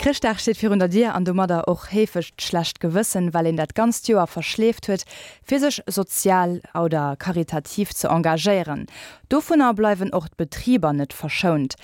Chrëschtdag steet virun der Dier an domadder och heefeg d'schlecht Gewëssen, well een dat ganzt Joer verschleeft huet, fir sech sozial oder karitativ ze engagéieren. Dovunner bleiwen och d'Betriber net verschount.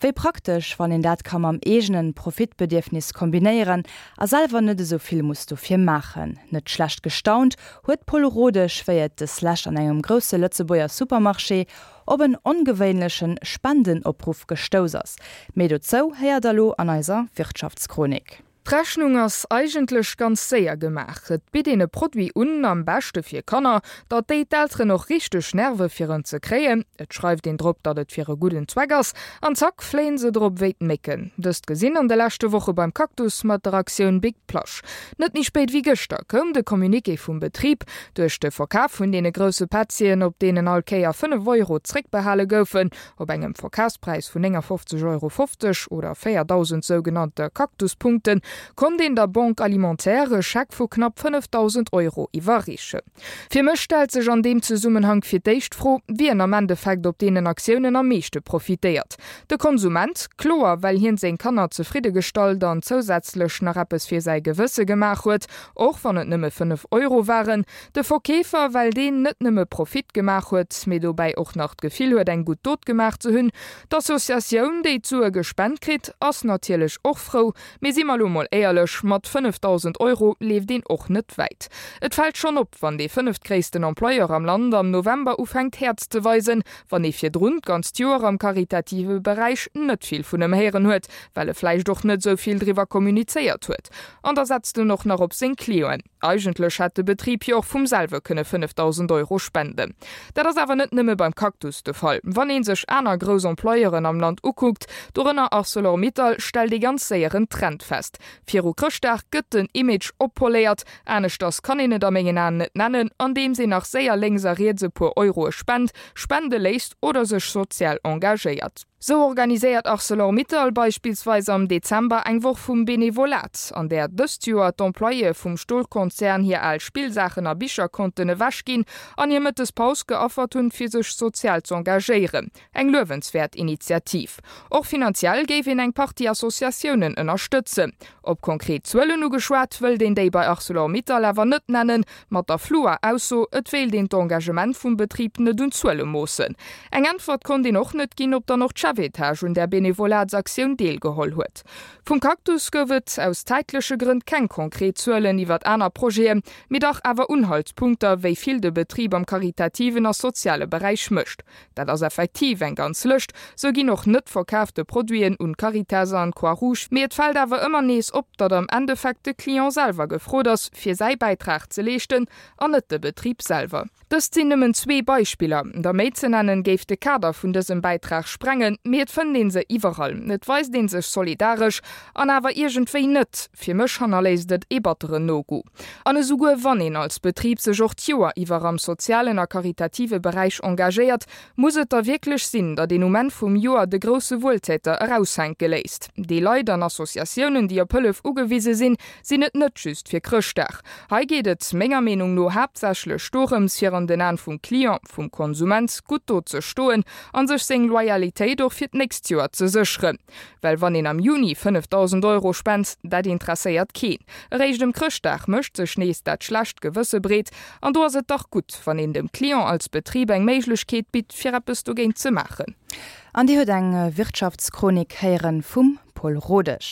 Wéi praktesch, wann een dat ka mam eegene Profitbedierfnis kombinéieren a selwer net esou vill muss dofir maachen. Net schlecht gestaunt huet d'Paule Rodesch, wéi et deslescht an engem grousse Lëtzebuerger Supermarché op en ongewéinleche Spendenopruff gestouss ass. Méi dozou héiert der lo an eiser Wirtschaftschronik. D'Rechnung ass eigentlech ganz séier gemaach. Et bitt een e Produit un, am beschte fir Kanner, datt déi d'Elteren och richteg nerve fir en ze kréien. Et schreift een drop, datt et fir e gudden Zweck ass, an zack fléien se drop wéi d'Mécken. Dëst gesinn an de leschte Woche beim Cactus mat der Aktioun Big Plush. Net méi spéit wéi gëschter koum de Communiqué vum Betrib. Duerch de Verkaf vun deene grousse Petzien, op deenen all Kéier 5 Euro zréckbehale goufen, op engem Verkafspräis vun 59,50 Euro oder 4.000 sougenannte Cactus-Punkten, konnt een der Banque Alimentaire e Scheck vu knapp 5.000 Euro iwwerreechen. Fir mech stellt sech an deem Zesummenhank fir d'éischt d'Fro, wien am Endeffekt op deenen Aktiounen am meeschte profitéiert. De Konsument, kloer, well hien seng Kanner zefridde gestallt an zousätzlech nach eppes fir säi Gewësse gemaach huet, Och wann et nëmme 5 Euro waren. De Verkeefer, well deen net nëmme Profit gemaach huet, mee dobäi och nach d'Gefill huet, eng gutt Dot gemaach ze hunn. D'Associatioun, déi d'Sue gespent kritt, ass natierlech och frou. Mee si mer lo mol éierlech, mat 5.000 Euro leeft een och net wäit. Et fält schonn op, wann dee fënneftgréissten Employeur am Land am November ufänkt Häerz ze weisen, wann ee virdrun d'ganzt Joer am karitative Beräich net vill vun em héieren huet, well e vläicht och net esou vill driwwer kommunizéiert huet. An da setzt en och nach op seng Clienten. Eigentlech hätt de Betrib jo och vum selwe kënne 5.000 Euro spenden. Dat ass awer net nëmme beim Cactus de Fall. Wann ee sech aner grouss Employeuren am Land ukuckt, dorënner Arcelor Mittal, stellt ee ganz séier en Trend fest. Viru Chrëschtdag gëtt den Image oppoléiert, aneschters kann een et a mengen Aen net nennen, andeems een nach séier lénks a riets e puer Euroe spent, spende léisst oder sech sozial engagéiert. Sou organiséiert Arcelor Mittal beispillsweis am Dezember eng Woch vum Benevolat, an där dëst Joer d'Employéë vum Stolkonzern hir al Spillsaachen a Bicher konnten ewechginn an hir Mëttespaus geaffert hunn, fir sech sozial z'engagéieren. Eng luewenswäert Initiativ. Och finanziell géif een eng Partie Associatiounen ënnerstëtzen. Op konkret Zuelen ugeschwat, wëllt een déi bei Arcelor Mittal awer net nennen, mat der flouer Ausso, et wéilt een d'Engagement vum Betrib net un Zuele moossen. Eng Äntwert konnt een och net ginn, ob dann och d'Chefetage un där Benevolatsaktioun deelgeholl huet. Vum Cactus gouf et aus zäitleche Grënn keng konkret Zuelen iwwert aner Projeten, mee dach awer Unhaltspunkter, wéi vill de Betrib am karitativen a soziale Beräich mécht. Dat ass effektiv eng ganz Lëscht. Sou ginn och net verkaafte Produiten un d'Caritas an d'Croix Rouge. Mee et fält awer ëmmer nees op, datt am Endeffekt de Client selwer gefrot ass, fir säi Bäitrag ze leeschten an net de Betrib selwer. Dëst sinn nëmmen zwee Beispiller. Der méi ze nennen, géif de Kader vun dësem Bäitrag sprengen. Mee et fënnt ee se iwwerall. Et weist ee sech solidaresch an awer iergendwéi net. Fir mech hannerléisst et ee batteren Nogoût. An esouguer wann een als Betrib sech och d'Joer iwwer am sozialen a karitative Beräich engagéiert, muss et da wierklech sinn, datt een um Enn vum Joer de grousse Wueltäter eraushänke léisst? Déi Leit an Associatiounen, déi op Hëllef ugewise sinn, sinn et net just fir Chrëschtdag. Hei geet et menger Meenung no haaptsächlech dorëms, fir an den Aen vum Client, vum Konsument, gutt do ze stoen an sech seng Loyalitéit och fir d'nächst Joer ze sécheren. Well wann een am Juni 5.000 Euro spent, dat interesséiert keen. Eréischt ëm Chrëschtdag mécht sech nees dat schlecht Gewësse breet. An do ass et dach gutt, wann een dem Client als Betrib eng Méiglechkeet bitt, fir eppes dogéint ze maachen. An Dir huet eng Wirtschaftschronik héieren vum Paul Rodesch.